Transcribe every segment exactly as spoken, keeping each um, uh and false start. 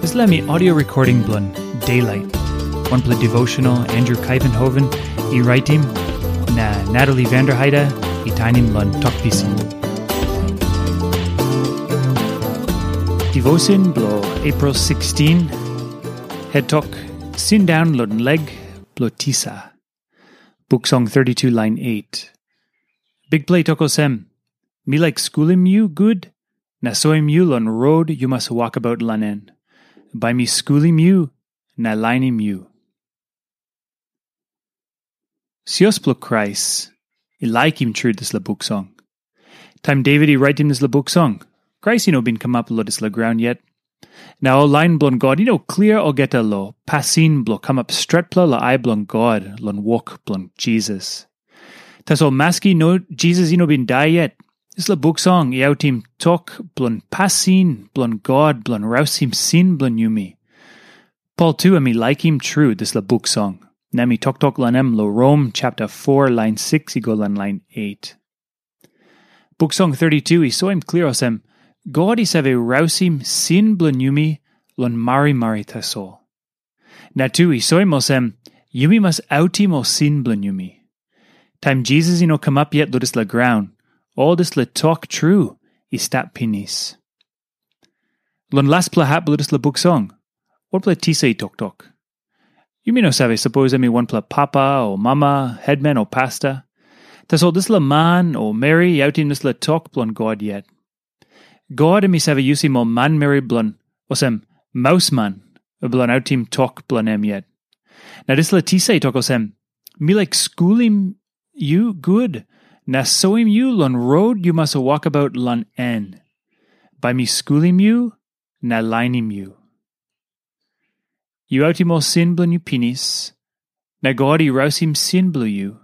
Dispela mi audio recording bilong Daylight, wanpela devotional Andrew Kuyvenhoven i raitim, na Natalie Vanderheide i tainim long tok pisin. Devotion bilong April sixteen, het tok, Sindaun long leg bilong tisa. Buk Song thirty-two, lain eight. Bikpela i tok olsem, "Mi laik skulim yu gut, na soim yu long rot yu mas wokabaut long en. Bai mi skulim yu na lainim yu." Sios bilong Krais i laikim tru dispela buk song. Taim Devit i raitim dispela buk song, Krais i no bin kamap long dispela graun yet. Na ol lain bilong God i no klia olgeta long pasin bilong kamap stretpela long ai bilong God long wok bilong Jisas. Tasol maski no Jisas i no bin dai yet, dispela buk song i autim tok bilong pasin bilong God bilong rausim sin bilong yumi. Pol tu em i laikim tru dispela buk song, na em i toktok long em long Rom chapter four, lain six i go long lain eight. Buk Song thirty-two i soim klia olsem, God i save rausim sin bilong yumi long marimari tasol. Na tu i soim olsem, yumi mas autim ol sin bilong yumi. Taim Jisas i no kamap yet long dispela graun, ol dispela tok tru i stap pinis. Long laspela hap bilong dispela buk song, wanpela tisa i toktok. Yumi no save sapos em i wanpela papa o mama, hetman o pasta. Tasol dispela man o meri i autim dispela tok bilong God yet. God em i save yusim ol manmeri bilong olsem mausman bilong autim tok bilong em yet. Na dispela tisa i tok olsem, "Mi laik skulim yu gut, na soim yu long rot yu mas wokabaut long en. Bai mi skulim yu na lainim yu." Yu autim ol sin bilong yu pinis, na God i rausim sin bilong yu.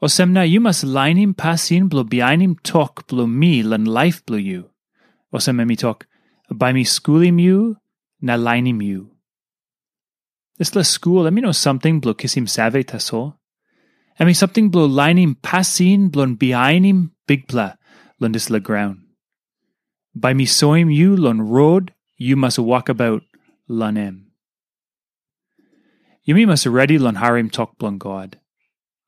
Olsem na yu mas lainim pasin bilong bihainim tok bilong mi long laip bilong yu. Olsem em i tok, "Bai mi skulim yu na lainim yu." Dispela skul em i no samting bilong kisim save tasol. Em i samting bilong lainim pasin bilong bihainim Bikpela long dispela graun. "Bai mi soim yu long rot yu mas wokabaut long em." Yumi mas redi long harim tok bilong God.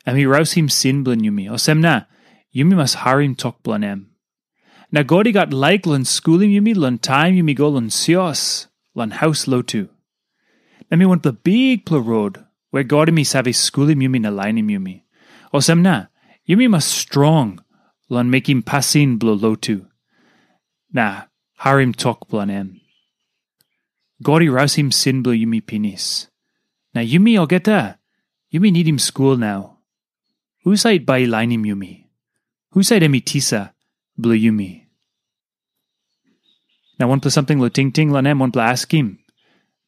Em i rausim sin bilong yumi, olsem na yumi mas harim tok bilong em. Na God i gat laik long skulim yumi long taim yumi go long sios, long haus lotu. Na mi wanpela bikpela rot we God em i save skulim yumi na lainim yumi. Olsem na, yumi mas strong long mekim pasin bilong lotu, na harim tok bilong em. God i rausim sin bilong yumi pinis. Na yumi olgeta, yumi nidim skul nau. Husat bai i lainim yumi? Husat em i tisa bilong yumi? Na wanpela samting long tingting long em, wanpela askim.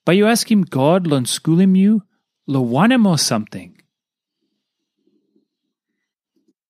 Bai yu askim God long skulim yu long wanem ol samting?